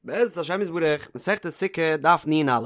בעזרת השם יתברך, מסכת סוכה, דף נ"א.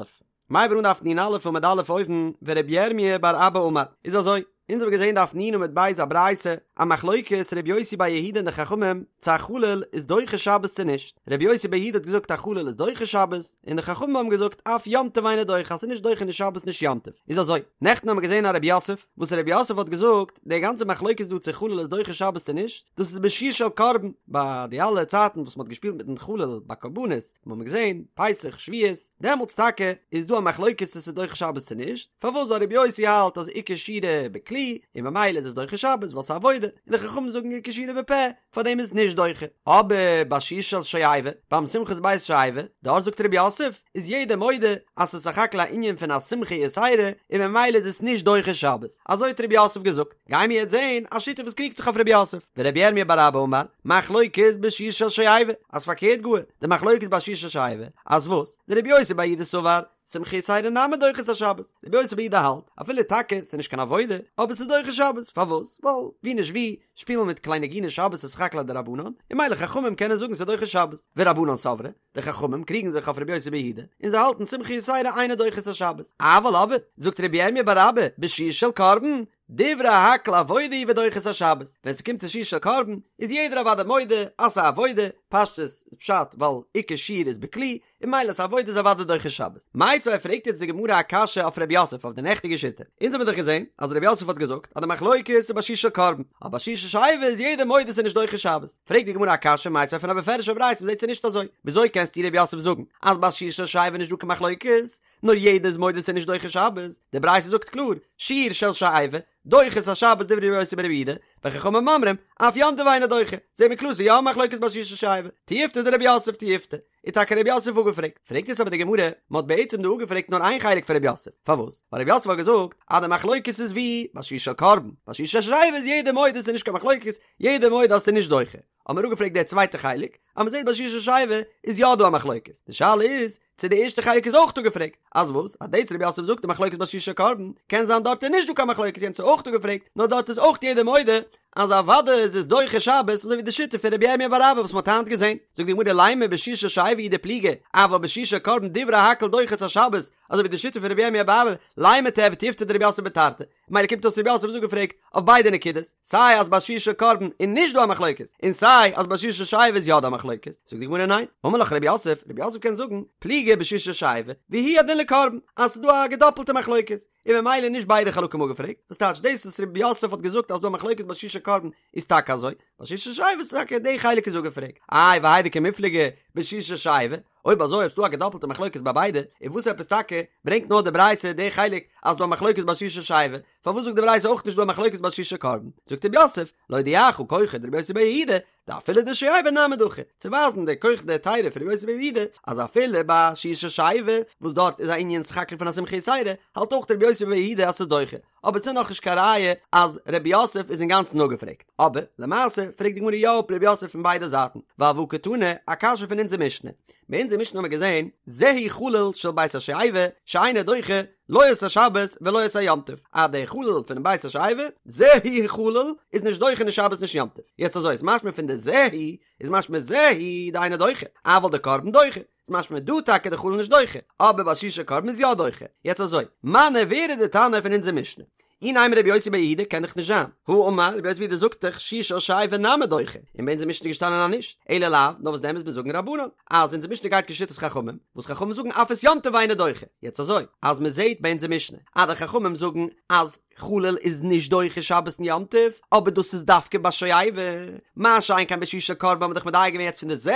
מ'הייבט אן דף נ"א עמוד א' אויבן, ורבי ירמי' בר אבא אמר, איז אזוי, אונז האבן געזען דף נ עמוד ב' א ברייתא, א מחלוקת רבי יוסי בר יהודה און די חכמים, צו א חליל איז דוחה שבת צו נישט, רבי יוסי בר יהודה האט געזאגט א חליל איז דוחה שבת, און די חכמים האבן געזאגט אף יום טוב אינו דוחה אז ס'איז נישט דוחה נישט שבת נישט יום טוב, איז אזוי, נעכטן האבן מיר געזען א רב יוסף, וואס רב יוסף האט געזאגט, די גאנצע מחלוקת דא צו חליל איז דוחה שבת צו נישט, דאס איז בשיר של קרבן, ביי די אלע צייטן וואס מ'האט געשפילט מיטן חליל ביי קרבנות, האבן מיר געזען, פסח, שבועות, דעמאלטס טאקע איז דא א מחלוקת צו ס'איז דוחה שבת צו נישט, פארוואס ווייל רבי יוסי האלט אז עיקר שירה בכלי, און ממילא איז עס דוחה שבת ווייל ס'איז עבודה, און די חכמים זאגן עיקר שירה בפה, פארדעם איז נישט דוחה. אבער ביי שיר של שואבה, ביים שמחת בית השואבה, דארט זאגט רב יוסף, איז יעדער מודה אז ס'איז סך הכל א ענין פון א שמחה יתירה, און ממילא איז עס נישט דוחה שבת. אזוי האט רב יוסף געזאגט. גיימיר יעצט זעהן א שיטה וואס קריגט זיך אויף רב יוסף. ורבי ירמיה בר אבא אמר, מחלוקת בשיר של שואבה, אז פארקערט גאר, די מחלוקת ביי שיר של שואבה, אז וואס? דרבי יוסי בר יהודה סבר, שמחה יתירה נמי דוחה את השבת, רבי יוסי בר יהודה האלט, אפילו טאקע ס'איז נישט קיין עבודה, אבער ס'איז דוחה שבת, פארוואס? ווייל ווי נישט ווי, שפילן מיט כלי נגינה שבת איז סך הכל א דרבנן, און ממילא חכמים קענען זאגן ס'איז דוחה שבת, ורבנן סברי, די חכמים קריגן זיך אויף רבי יוסי בר יהודה, און זיי האלטן שמחה יתירה אינה דוחה את השבת, אבל אבער, זאגט רבי ירמיה בר אבא, בשיר של קרבן, דברי הכל עבודה היא ודוחה את השבת, ווען ס'קומט צו שיר של קרבן, איז יעדער אוודאי מודה אז ס'איז א עבודה, פשטות איז פשט ווייל עיקר שיר איז בכלי, און ממילא ס'איז עבודה איז אוודאי דוחה שבת. מיתיבי פרעגט יעצט די גמרא א קשיא אויף ר' יוסף אויף די נעכטיגע שיטה. אונז האמיר דאך געזען אז ר' יוסף האט געזאגט אז די מחלוקת איז ביי שיר של קרבן, אבער ביי שיר של שואבה איז יעדער מודה ס'איז נישט דוחה שבת. פרעגט די גמרא א קשיא מיתיבי פון א בפירוש'ע ברייתא מ'זעט ס'איז נישט אזוי. וויאזוי קענסטו ר' יוסף זאגן אז ביי שיר של שואבה איז נישט דא קיין מחלוקת? נאר יעדער איז מודה ס'איז נישט דוחה שבת. די ברייתא זאגט קלאר, שיר של שואבה, דוחה את השבת דברי ר' יוסי בר' יהודה, וחכמים אומרים, אף יום טוב אינו דוחה. זעהן מיר קלאר ס'איז יא א מחלוקת ביי שיר של שואבה. תיובתא דר' יוסף תיובתא. איז טאקע ר' יוסף אפגעפרעגט. פרעגט יעצט אבער די גמרא, מען האט בעצם דא אפגעפרעגט נאר איין חלק פון ר' יוסף, פארוואס? ווייל ר' יוסף האט געזאגט אז די מחלוקת איז ווי ביי שיר של קרבן, ביי שיר של שואבה איז יעדער מודה ס'איז נישט קיין מחלוקת, יעדער מודה אז ס'איז נישט דוחה. האט מען אפגעפרעגט די צווייטע חלק, אז מען זעט ביי שיר של שואבה איז יא דא א מחלוקת. די שאלה איז, צו די ערשטע חלק איז אויך אפגעפרעגט, אז וואס? אז דאס ר' יוסף זאגט די מחלוקת ביי שיר של קרבן, קען זיין דארט איז נישט דא קיין מחלוקת יענץ איז אויך אפגעפרעגט, נאר דארט איז אויך יעדער מודה אז אוודאי איז עס דוחה שבת אזוי ווי די שיטה פון רבי ירמיה בר אבא וואס מ'האט היינט געזען, זאגט די גמרא לימא בשיר של שואבה הוא דפליגי, אבל בשיר של קרבן דברי הכל דוחה את השבת, אזוי ווי די שיטה פון רבי ירמיה בר אבא, לימא תיהוי תיובתא דרב יוסף בתרתי, ממילא קומט אויס רב יוסף איז אפגעפרעגט אויף ביידע נקודות, סיי אז ביי שיר של קרבן איז נישט דא א מחלוקת, און סיי אז ביי שיר של שואבה איז יא דא א מחלוקת, זאגט די גמרא ניין, אמר לך רב יוסף, רב יוסף קען זאגן, פליגי בשיר של שואבה, והוא הדין לקרבן, אז ס'איז דא א געדאפלטע מחלוקת, און ממילא נישט ביידע חלקים אפגעפרעגט, וואס טייטש דאס וואס רב יוסף האט געזאגט אז ס'דא א מחלוקת ביי שיר של קרבן איז טאקע אזוי, ביי שיר של שואבה איז טאקע די חלק איז אפגעפרעגט, איי והאי דקא מיפלגי בשיר של שואבה, אויב אזוי אויב ס'דא א געדאפלטע מחלוקת ביי ביידע, איז וואס עפעס טאקע ברענגט נאר די ברייתא די חלק אז ס'דא א מחלוקת ביי שיר של שואבה, פארוואס זאגט די ברייתא אויך נישט דא א מחלוקת ביי שיר של קרבן? זאגט רב יוסף, להודיעך כחו דרבי יוסי בר יהודה, דאפילו דשואבה נמי דחי, צו ווייזן די כח דהיתרא פון רבי יוסי בר יהודה, אז אפילו ביי שיר של שואבה, וואס דארט איז א ענין סך הכל פון א שמחה יתירה, האלט אויך רבי יוסי בר יהודה אז ס'איז דוחה. אבער ס'איז נאכנישט קיין ראיה אז רב יוסף איז אינגאנצן אפגעפרעגט. אבער, למעשה, פרעגט די גמרא יא אפ רב יוסף פון ביידע זייטן, ווייל והא קתני, א קשיא פון אונזער משנה. ביי אונזער משנה האמיר געזען, זהו חליל של בית השואבה, שאינו דוחה, לא את השבת ולא את היום טוב, אז דער חליל פונעם בית השואבה, זהו חליל, איז נישט דוחה נישט שבת נישט יום טוב. יעצט אזוי איז משמע פון די זהו, איז משמע זהו דאינו דוחה, אבל דקרבן דוחה, איז משמע דא טאקע די חליל נישט דוחה, אבער ביי שיר של קרבן איז יא דוחה. יעצט אזוי, מני ווער איז די תנא פון אונזער משנה? אי נימא רבי יוסי בר יהודה קען דאך נישט זיין, הא אמר רבי יוסי בר יהודה זאגט דאך שיר של שואבה נמי דוחה, און ביי אונזער משנה איז געשטאנען אז נישט, אלא לאו, נאר וואס דען מוז מען זאגן רבנן, אז אונזער משנה גייט כשיטת חכמים, וואס חכמים זאגן אף את יום טוב אינו דוחה, יעצט אזוי, אז מען זעט ביי אונזער משנה אז די חכמים זאגן אז חליל איז נישט דוחה שבת און יום טוב, אבער דאס איז דווקא ביי שואבה, מה שאין כן ביי שיר של קרבן האבן מיר דאך מדייק געווען יעצט פון די זהו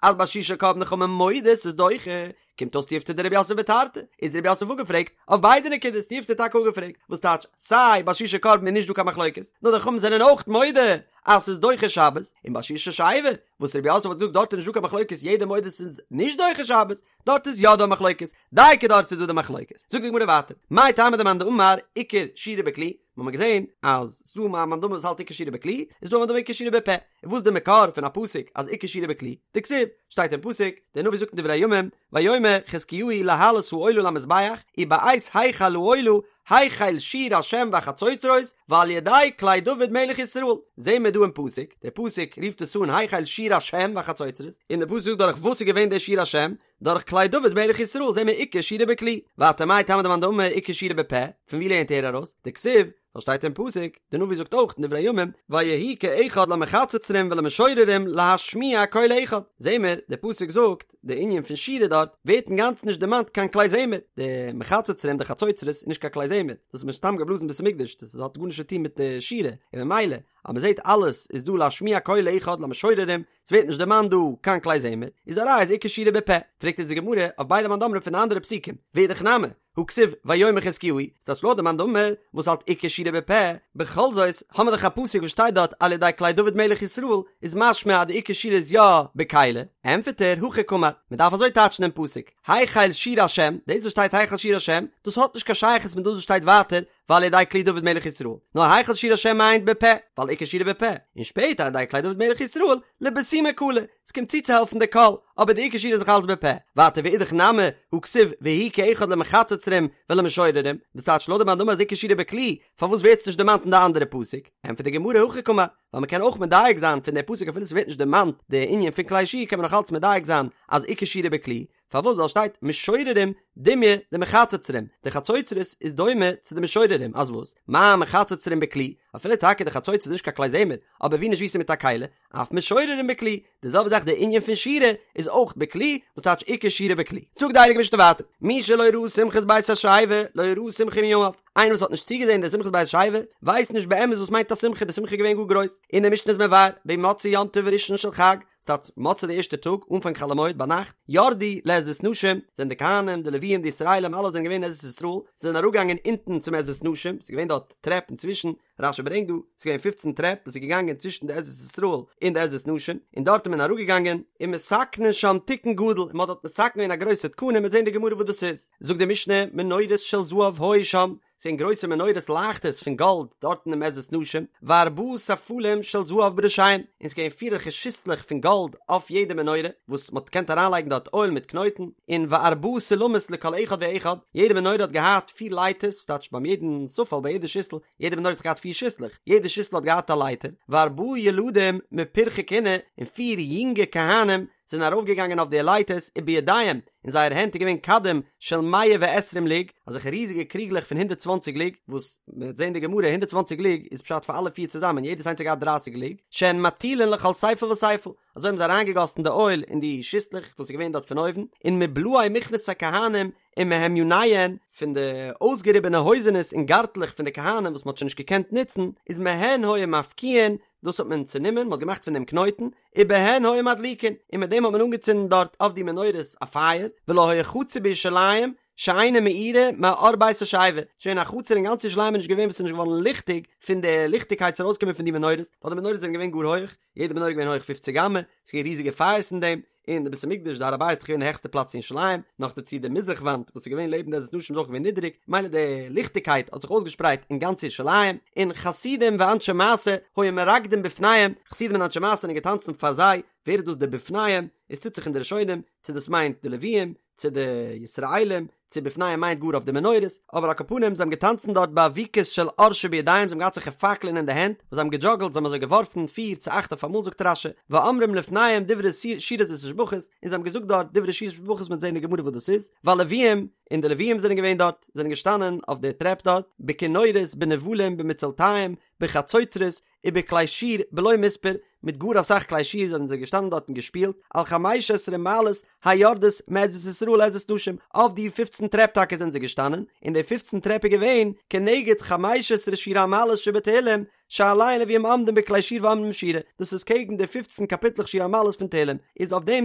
אז ביי שיר של קרבן די חכמים מודה ס'איז דוחה, קומט אויס תיובתא דרב יוסף בתרתי, איז רב יוסף אפגעפרעגט אויף ביידע נקודות, תיובתא טאקע אפגעפרעגט, וואס טייטש סיי ביי שיר של קרבן איז נישט דא קיין מחלוקת, נאר די חכמים זענען אויך מודה אז ס'איז דוחה שבת, און ביי שיר של שואבה, וואס רב יוסף האט געזאגט דארט איז נישט דא קיין מחלוקת יעדער מודה ס'איז נישט דוחה שבת, דארט איז יא דא מחלוקת, דייקא דארט איז דא די מחלוקת. זאגט די גמרא ווייטער, מאי טעמא דמאן דאמר עיקר שירה בכלי, מיר האבן געזען אז ס'דא א מאן דאמר וואס האלט עיקר שירה בכלי, און ס'דא א מאן דאמר עיקר שירה בפה, און וואס איז די מקור פון א פסוק אז עיקר שירה בכלי? דכתיב, שטייט אין פסוק, דער נביא זאגט אין דברי הימים, ויאמר חזקיהו להעלות העולה למזבח, ובעת החל העולה. החל שיר השם והחצוצרות ועל ידי כלי דוד מלך ישראל, זעהן מיר דא אין פסוק, דער פסוק רופט עס אן החל שיר השם והחצוצרות, און דער פסוק זאגט דורך וואס איז געווען דער שיר השם, דורך כלי דוד מלך ישראל זעהן מיר עיקר שירה בכלי, ווייטער מאי טעמא דמאן דאמר עיקר שירה בפה, פון ווי לערנט ער ארויס? דכתיב, ווייל שטייט אין פסוק, די נביא זאגט אויך אין דברי הימים, ויהי כאחד למחצוצרים ולמשוררים להשמיע קול אחד, זעהן מיר, די פסוק זאגט, די ענין פון שירה דארט, ווערט אינגאנצן נישט דערמאנט קיין כלי זמר, די מחצוצרים די חצוצרות איז נישט קיין כלי זמר, דאס האט מען סתם געבלאזן בית המקדש, דאס האט גארנישט צו טון מיט די שירה, און ממילא אז מען זעט אלעס איז דא להשמיע קול אחד למשוררים, ס'ווערט נישט דערמאנט דא קיין כלי זמר, איז א ראיה אז עיקר שירה בפה, פרעגט אונז די גמרא אויף ביידע מאן דאמרים פון די אנדערע פסוקים, ואידך נמי, הא כתיב ויאמר חזקיהו, ס'טייטש לויט די מאן דאמר וואס האלט עיקר שירה בפה, בכל זאת האמיר דאך א פסוק וואס שטייט דארט על ידי כלי דוד מלך ישראל, איז משמע אז די עיקר שירה איז יא בכלי, ענטפערט ער, הכי קאמר, מ'דארף אזוי טייטשן דעם פסוק, החל שיר השם, דאס וואס שטייט החל שיר השם, דאס האט נישט קיין שייכות מיט דאס וואס שטייט ווייטער ועל ידי כלי דוד מלך ישראל, נאר החל שיר השם מיינט בפה, ווייל עיקר שירה בפה, און שפעטער על ידי כלי דוד מלך ישראל, לבסומי קלא, ס'קומט צוצוהעלפן די קול, אבער די עיקר שירה איז נאך אלץ בפה. ווייטער ואידך נמי, הא כתיב ויהי כאחד למחצוצרים ולמשוררים, וואס טייטש לויט די מאן דאמר אז עיקר שירה בכלי, פארוואס ווערט עס נישט דערמאנט אין די אנדערע פסוק? ענטפערט די גמרא הכי קאמר, ווייל מ'קען אויך מדייק זיין פון די פסוק אפילו ס'ווערט נישט דערמאנט די ענין פון כלי שיר קען מען נאך אלץ מדייק זיין אז עיקר שירה בכלי, פארוואס ווייל שטייט משוררים דומיא דמחצוצרים, די חצוצרות איז דומה צו די משוררים, אז וואס? מה מחצוצרים בכלי, אפילו טאקע די חצוצרות איז נישט קיין כלי זמר, אבער ווי נישט ווי ס'איז מיט א כלי, אף משוררים בכלי, די זעלבע זאך די ענין פון שירה איז אויך בכלי, וואס טייטש עיקר שירה בכלי. זאגט די הייליגע משנה ווייטער, מי שלא ראה שמחת בית השואבה, לא ראה שמחה מימיו, איינער וואס האט נישט צוגעזען די שמחת בית השואבה, ווייסט נישט באמת וואס מיינט א שמחה, די שמחה איז געווען גאר גרויס, און די משנה איז מבאר, במוצאי יום טוב ראשון של חג, ס'טייטש מוצאי די ערשטע טאג, אנפאנג חול המועד ביינאכט, ירדו לעזרת נשים, זענען די כהנים, די לוויים, די ישראלים, אלע זענען געווען אין עזרת ישראל, זיי זענען אראפגעגאנגען אונטן צום עזרת נשים, ס'איז געווען דארט טרעפ אינצווישן, רש"י ברענגט דא, ס'איז געווען פופצן טרעפ וואס איז געגאנגען צווישן די עזרת ישראל און די עזרת נשים, און דארט איז מען אראפגעגאנגען, ומתקנין שם תיקון גדול, און מ'האט דארט מתקן געווען א גרויסע תקנה, מ'וועט זען אין די גמרא וואס דאס איז, זאגט די משנה, מנורות של זהב היו שם, ס'געווען גרויסע מנורות לייכטערס פון גאלד דארטן אין עזרת נשים, וארבעה ספלים של זהב בראשיהם, און ס'געווען פיר אזעלכע שיסלעך פון גאלד אויף יעדע מנורה, וואס מ'האט געקענט אריינלייגן דארט אויל מיט קנויטן, און וארבעה סולמות לכל אחד ואחד, יעדע מנורה האט געהאט פיר לייטערס, וואס טייטש ביים יעדן ספל ביי יעדע שיסל, יעדע מנורה האט געהאט פיר שיסלעך, יעדע שיסל האט געהאט א לייטער, וארבעה ילדים מפרחי כהונה, און פיר יונגע כהנים זענען ארויפגעגאנגען אויף די לייטערס ובידיהם, אין זייער הענט איז געווען כדים של מאה ועשרים לוג, אזעלכע ריזיגע קריגלעך פון הונדערט צוואנציג לוג, וואס מען וועט זען די גמרא הונדערט צוואנציג לוג איז פשט פאר אלע פיר צוזאמען, יעדעס איינס האט געהאט דרייסיג לוג, שהן מטילין לכל ספל וספל, אזוי האבן זיי אריינגעגאסן די אויל אין די שיסלעך וואס איז געווען דארט פון אויבן, און מבלאי מכנסי כהנים ומהמיוניהן, פון די אויסגעריבענע הויזענעס און גארטלעך פון די כהנים וואס מען האט שוין נישט געקענט נוצן, איז מהן היו מפקיעין, דאס האט מען צענומען, מען האט געמאכט פון דעם קנויטן, ובהן היו מדליקין, און מיט דעם האט מען אנגעצינדן דארט אויף די מנורות א פייער, ולא היה חצר בירושלים שאינה מאירה מאור בית השואבה, שוין א חצר אין גאנץ ירושלים איז נישט געווען וואס איז נישט געווארן ליכטיג פון די ליכטיגקייט ס'איז ארויסגעקומען פון די מנורות, ווייל די מנורות זענען געווען גאר הויך, יעדע מנורה איז געווען הויך פופציג אמה, ס'איז געווען ריזיגע פייערס אין דעם, און די בית המקדש די הר הבית איז דאך געווען די העכסטע פלאץ אין ירושלים, נאכדערצו די מזרח וואנט וואס איז געווען לעבן די עזרת נשים איז אויך געווען נידעריג, מילא די ליכטיגקייט האט זיך אויסגעשפרייט אין גאנץ ירושלים, און חסידים ואנשי מעשה היו מרקדין בפניהם, חסידים און אנשי מעשה זענען געטאנצן פאר זיי, ווער איז דאס די בפניהם? עס טוט זיך אין די ראשונים, צו דאס מיינט די לוויים, צו די ישראלים, צו בפניהם מיינט גאר אויף די מנורות, אבער על כל פנים זיי האבן געטאנצן דארט באבוקות של אור שבידיהם, זיי האבן געהאט אזעלכע פאקלען אין די הענט, וואס זיי האבן געדזשאגלט, זיי האבן אזוי געווארפן פיר צו אכט אויף אמאל זאגט רש"י, ואומרים לפניהם דברי שירות ותשבחות, און זיי האבן געזאגט דארט דברי שירות ותשבחות מ'וועט זען אין די גמרא וואס דאס איז, והלוויים, און די לוויים זענען געווען דארט, זענען געשטאנען אויף די טרעפ דארט, בכינורות, בנבלים, במצלתיים, בחצוצרות, ובכלי שיר בלא מספר, מיט גאר אסאך כלי שיר זענען זיי געשטאנען דארט און געשפילט, על חמש עשרה מעלות היורדות מעזרת ישראל לעזרת נשים, אויף די פופצן טרעפ טאקע זענען זיי געשטאנען, און די פופצן טרעפ איז געווען כנגד חמש עשרה שיר המעלות שבתהילים, שעליהן לוויים עומדים בכלי שיר ואומרים שירה, דאס איז קעגן די פופצן קאפיטלעך שיר המעלות פון תהילים, איז אויף דעם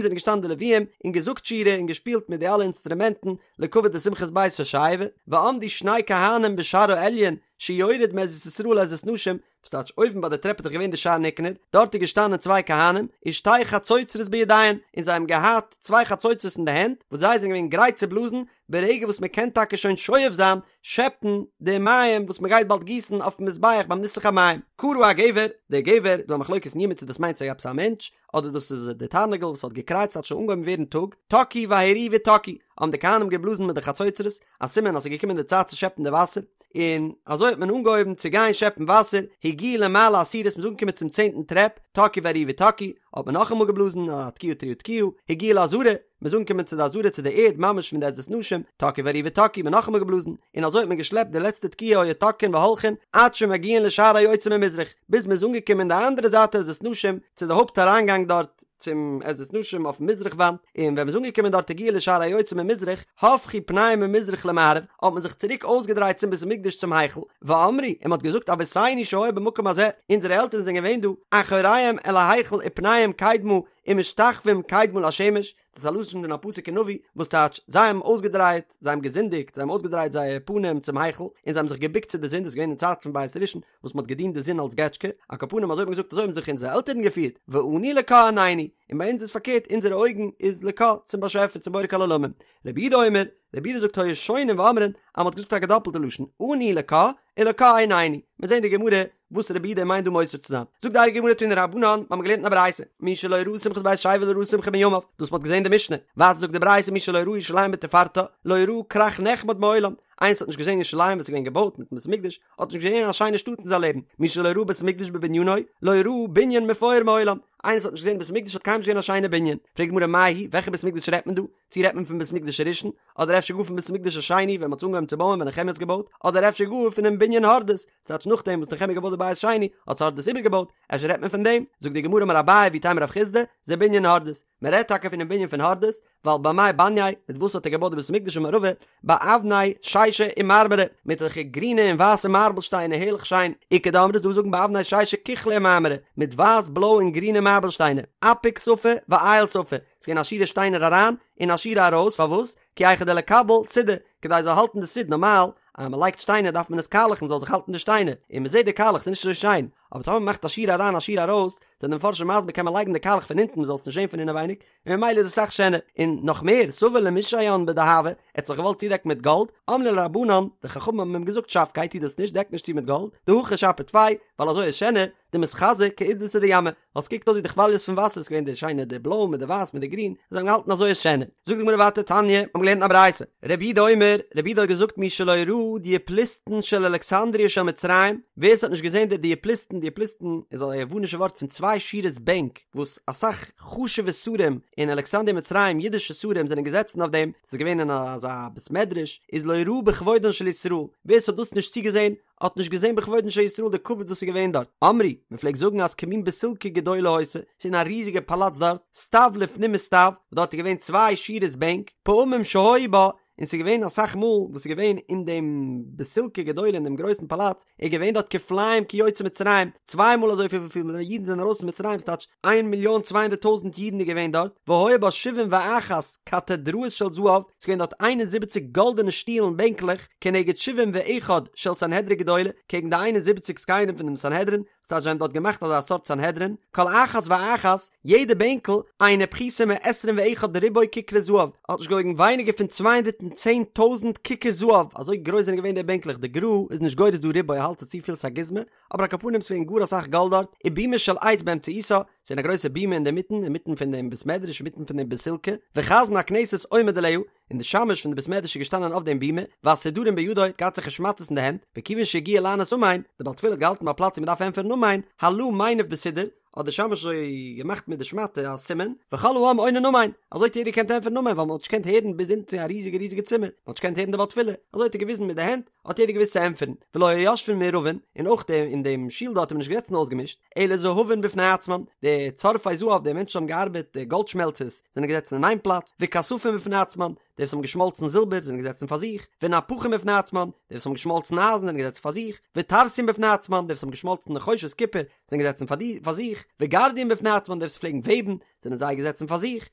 זענען געשטאנען די לוויים און געזאגט שירה און געשפילט מיט די אלע אינסטרומענטן לכבוד די שמחת בית השואבה, ועמדו שני כהנים בשער העליון שיורד מעזרת ישראל לעזרת נשים, וואס טייטש אויבן ביי די טרעפ איז דאך געווען די שער ניקנור, דארט איז געשטאנען צוויי כהנים, ושתי חצוצרות בידיהן, און זיי האבן געהאט צוויי חצוצרות אין די הענט, וואס זיי זענען געווען גרייט צו בלאזן, ברגע וואס מען קען טאקע שוין שואב זיין, שעפן, די מים וואס מען גייט באלד גיסן אויפן מזבח ביים ניסוך המים. קרא הגבר, דער גבר, דא א מחלוקת אין יומא צו דאס מיינט זיך עפעס א מענטש, אדער דאס איז די תרנגול וואס האט געקרייט ס'האט שוין אנגעהויבן ווערן טאג, תקעו והריעו ותקעו, האבן די כהנים געבלאזן מיט די חצוצרות, א סימן אז ס'איז געקומען די צייט צו שעפן די וואסער. און אזוי האט מען אנגעהויבן צו גיין שעפן וואסער, הגיעו למעלה העשירית מ'איז אנגעקומען צום צענטן טרעפ, תקעו והריעו ותקעו, האט מען נאכאמאל געבלאזן א תקיעה תרועה תקיעה, הגיעו לעזרה, מ'איז אנגעקומען צו די עזרה צו די ערד ממש פון די עזרת נשים, תקעו והריעו ותקעו, מ'האט נאכאמאל געבלאזן, און אזוי האט מען געשלעפט די לעצטע תקיעה היו תוקעין והולכין עד שמגיעין לשער היוצא ממזרח, ביז מ'איז אנגעקומען די אנדערע זייט עזרת נשים צו די הויפט אריינגאנג דארט צום עזרת נשים אויפן מזרח וואנט, און ווען מ'איז אנגעקומען דארט הגיעו לשער היוצא ממזרח, הפכו פניהם ממזרח למערב, האט מען זיך צוריק אויסגעדרייט צום בית המקדש צום היכל, ואמרו, און מ'האט געזאגט אבותינו שהיו במקום הזה, אונזערע עלטערן זענען געווען דא, אחוריהם אל ההיכל ופניהם קדמה, ומשתחווים קדמה לשמש, דאס איז א לשון פון א פסוק אין נביא, וואס טייטש, זיי האבן אויסגעדרייט, זיי האבן געזינדיגט, זיי האבן אויסגעדרייט זייער פנים צום היכל, און זיי האבן זיך געבוקט צו די זון, דאס איז געווען אין צייט פון בית ראשון, וואס מען האט געדינט די זון אלס געטשקע, על כל פנים אזוי האט מען געזאגט אזוי האבן זיך אונזערע עלטערן געפירט, ואנו לקה עינינו, און ביי אונז איז פארקערט, אונזערע אויגן איז לקה, צום באשעפער, צום בורא כל עולמים. רבי יהודה אומר, רבי יהודה זאגט היו שונין ואומרין, אז מען האט געזאגט א געדאפלטע לשון, אנו לקה, ולקה עינינו, מיר זעהן די גמרא וואס רבי יהודה מיינט דא מוסיף צו זיין. זאגט די הייליגע גמרא תנו רבנן, מיר האבן געלערנט אין א ברייתא, מי שלא ראה שמחת בית השואבה לא ראה שמחה מימיו, דאס מ'האט געזען די משנה, ווייטער זאגט די ברייתא מי שלא ראה ירושלים בתפארתה, לא ראה כרך נחמד מעולם, איינער וואס האט נישט געזען ירושלים ווען ס'איז געווען געבויט מיטן בית המקדש, האט נישט געזען א שיינע שטאט אין זיין לעבן, מי שלא ראה בית המקדש בבנינו, לא ראה בנין מפואר מעולם, איינער וואס האט נישט געזען בית המקדש האט קיינמאל נישט געזען א שיינע בנין, פרעגט די גמרא מאי היא, וועלכע בית המקדש רעדט מען דא? צי רעדט מען פון בית מקדש הראשון, אדער אפשר גאר פון בית מקדש השני ווען מ'האט עס אנגעהויבן צו בויען ווען נחמיה האט עס געבויט, אדער אפשר גאר פונעם בנין הורדוס, ס'טייטש נאכדעם וואס נחמיה האט געבויט די בית שני האט עס הורדוס איבערגעבויט, אפשר רעדט מען פון דעם? זאגט די גמרא אמר אביי ואיתימא רב חסדא, זה בנין הורדוס, מען רעדט טאקע פונעם בנין פון הורדוס, ווייל במאי בנייה, מיט וואס האט ער געבויט די בית מקדש אמר רבא, באבני שישא ומרמרא, מיט אזעלכע גרינע און ווייסע מארבל שטיינער הערליך שיין, איכא דאמרי ס'דא וואס זאגן באבני שישא כוחלא ומרמרא, מיט ווייס בלוי און גרינע מארבל שטיינער, אפיק שפה ואייל שפה, ס'איז געווען א שורה שטיינער אריין און א שורה ארויס, פארוואס? כי היכי דליקבל סידא, כדי ס'זאל האלטן די סיד, נארמאל אז מ'לייגט שטיינער דארף מען עס קאלעכן ס'זאל זיך האלטן די שטיינער, און מ'זעט די קאלעך ס'איז נישט אזוי שיין, אבער טאמער מ'מאכט א שורה אריין א שורה ארויס, זענען די מפרשים מסביר קען מען לייגן די קאלעך פון אונטן מ'זאל עס נישט זען פון אינעווייניג, און ממילא איז עס אסאך שענער, און נאך מער, סבר למישיין בדהבא, ער האט זיך געוואלט צודעקן מיט גאלד, אמרו ליה רבנן, די חכמים האבן אים געזאגט שבקיה טו דאס נישט דעק נישט צו מיט גאלד, דהכי שפיר טפי, ווייל אזוי איז שענער, דמתחזי כעידבתא דימא, ווייל ס'קוקט אויס ווי די כוואליעס פון וואסער, ס'געווען די שיינע די בלוי מיט די ווייס מיט די גרין, זיי האבן געהאלטן אזוי איז שענער. זאגט די גמרא ווייטער תניא, מ'האבן געלערנט אין א ברייתא, רבי יהודה אומר, רבי יהודה האט געזאגט מי שלא ראה דיופלוסטון של אלכסנדריה של מצרים, ווער ס'האט נישט געזען די דיופלוסטון, דיופלוסטון איז א יוונישע ווארט פון צוויי שורות בענק וואס אסאך חשוב'ע שרים אין אלכסנדריה מצרים אידישע שרים זענען געזעצן אויף דעם, ס'איז געווען אין אזא בית מדרש, איז לא ראה בכבודן של ישראל, ווער ס'האט דאס נישט צוגעזען האט נישט געזען בכבודן של ישראל די כבוד וואס איז געווען דארט, אמרו, מען פלעגט זאגן אז כמין בסילקא גדולה היתה, ס'איז געווען א ריזיגע פאלאץ דארט, סטיו לפנים מסטיו, וואס דארט איז געווען צוויי שורות בענק, פעמים שהיו בה, און ס'איז געווען אסאך מאל וואס איז געווען אין דעם בסילקא גדולה אין דעם גרויסן פאלאץ, איז געווען דארט כפליים כיוצאי מצרים, צוויי מאל אזוי פיל וויפיל אידן זענען ארויס פון מצרים, ס'טייטש איין מיליאן צוויי הונדערט טויזנט אידן איז געווען דארט, והיו בה שבעים ואחת קתדראות של זהב, ס'איז געווען דארט איין און זיבעציק גאלדענע שטולן בענקלעך, כנגד שבעים ואחד של סנהדרי גדולה, קעגן די איין און זיבעציק זקנים פון דעם סנהדרין, ס'טייטש זיי האבן דארט געמאכט אזא סארט סנהדרין, כל אחת ואחת, יעדע בענקל, אינה פחותה מעשרים ואחד ריבוא כיכרי זהב, האט נישט געוואויגן ווייניגער פון צוויי הונדערט און צען טויזנט כיכר זהב, אזוי גרויס זענען געווען די בענקלעך, די גר"א איז נישט גורס דא ריבוא ער האלט ס'איז צופיל ס'איז א גוזמא, אבער על כל פנים ס'געווען גאר אסאך גאלד דארט, ובימה של עץ באמצעיתה, ס'געווען א גרויסע בימה אינדערמיטן, אינמיטן פון דעם בית מדרש, אינמיטן פון דעם בסילקא, וחזן הכנסת עומד עליה, און די שמש פון די בית מדרש איז געשטאנען אויף דעם בימה, והסודרים בידו, האט געהאט אזעלכע שמאטעס אין די הענט, וכיוון שהגיע לענות אמן, די בעל תפילה האט געהאלטן ביי א פלאץ ווי מ'דארף ענטפערן אמן, הלה מניף בסודר, האט די שמש אזוי געמאכט מיט די שמאטע א סימן, וכל העם עונין אמן, אזוי האט יעדער געקענט ענטפערן אמן ווייל מ'האט נישט געקענט הערן ביז אונטן צו א ריזיגע ריזיגע צימער, מ'האט נישט געקענט הערן די בעל תפילה, אזוי האט ער געוויזן מיט די הענט, האט יעדער געוואוסט צו ענטפערן, ולא היו יושבין מעורבין, און אויך די אין דעם שול דארט איז מען נישט געזעצן אויסגעמישט, אלא זהבין בפני עצמן, די צורפי זהב, די מענטשן האבן געארבעט, די גאלד שמעלצערס, זענען געזעצן אין איין פלאץ, וכספים בפני עצמן, די וואס האבן געשמאלצן זילבער זענען געזעצן פאר זיך, ונפחים בפני עצמן, די וואס האבן געשמאלצן אייזן זענען געזעצן פאר זיך, וטרסיים בפני עצמן, די וואס האבן געשמאלצן נחושת קופער זענען געזעצן פאר זיך, וגרדיים בפני עצמן, די וואס פלעגן וועבן זענען זיי געזעצן פאר זיך,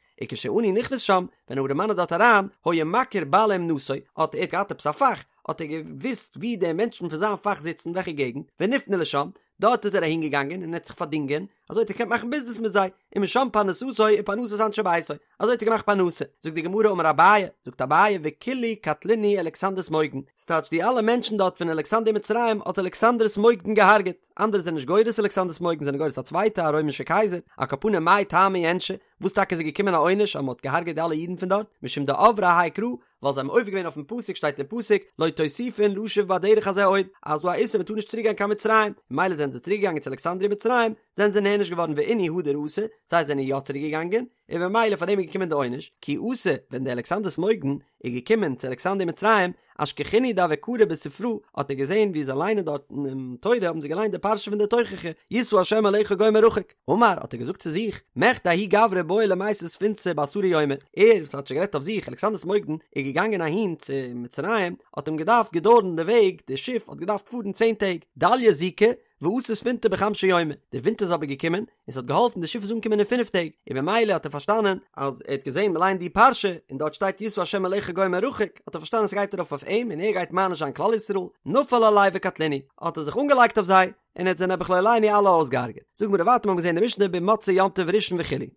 וכשעני נכנס שם, ווען א ארעמאן איז דארט אריין, היה מכיר בעלי אומנותו, האט ער געהאט עפעס א פאך, האט ער געוואוסט וואו די מענטשן פון זיין פאך זיצן, וועלכע געגנט, ונפנה לשם, דארט איז ער אהין געגאנגען און ער האט זיך פארדינגען, אזוי האט ער געקענט מאכן ביזנעס מיט זיי, ומשם פרנסתו ופרנסת אנשי ביתו, אזוי האט ער געמאכט פרנסה. זאגט די גמרא אמר אביי, זאגט אביי וכולהו קטלינהו אלכסנדרוס מוקדן, ס'טייטש די אלע מענטשן דארט פון אלכסנדריה מצרים האט אלכסנדרוס מוקדן געהארגעט, אנדערע זענען נישט גורס אלכסנדרוס מוקדן זענען גורס א צווייטע א רוימישע קייזער, על כל פנים מאי טעמא איענשו, וואס טאקע איז געקומען א עונש אז מ'האט געהארגעט די אלע אידן פון דארט, משום דעברי האי קרא, ווייל זיי האבן עובר געווען אויפן פסוק שטייט אין פסוק לא תוסיפון לשוב בדרך הזה עוד, אז דא א איסור מען טאר נישט צוריק גיין קיין מצרים, ממילא זענען זיי צוריק געגאנגען צו אלכסנדריה מצרים, זענען זיי נענש געווארן ואינהו הדר אתו, זיי זענען יא צוריק געגאנגען, און ממילא פאר דעם איז געקומען די עונש, כי אתא, ווען דער אלכסנדרוס מוקדון איז געקומען צו אלכסנדריה מצרים, אשכחינהו דהוו קרו בספרא, האט ער געזען ווי זיי ליינען דארט אינעם תורה האבן זיי געליינט די פרשה פון די תוכחה, ישא השם עליך גוי מרחוק, אמר האט ער געזאגט צו זיך, מכדי ההוא גברא בעי למיתי ספינתא בעשרה יומי, ער וואס האט שוין גערעדט אויף זיך, אלכסנדרוס מוקדון, איז געגאנגען אהין צו מצרים, האט אים געדארפט געדויערן די וועג, די שיף האט געדארפט פארן צען טעג, דליא זיקא, ואתא ספינתא בחמשא יומי, די ווינט איז אבער געקומען, און ס'האט געהאלפן די שיף איז אנגעקומען אין פינף טעג, און ממילא האט ער פארשטאנען אז ער האט געזען מ'ליינט די פרשה און דארט שטייט ישא השם עליך גוי מרחוק, האט ער פארשטאנען ס'גייט ארויף אויף אים און ער גייט מעניש זיין כלל ישראל, נפל עלייהו וקטלינהו, האט ער זיך אנגעלייגט אויף זיי, און ער האט זיי נעבעך לא עלינו אלע אויסגעהארגעט. זאגט די גמרא ווייטער מ'האט געזען די משנה במוצאי יום טוב ראשון וכו'.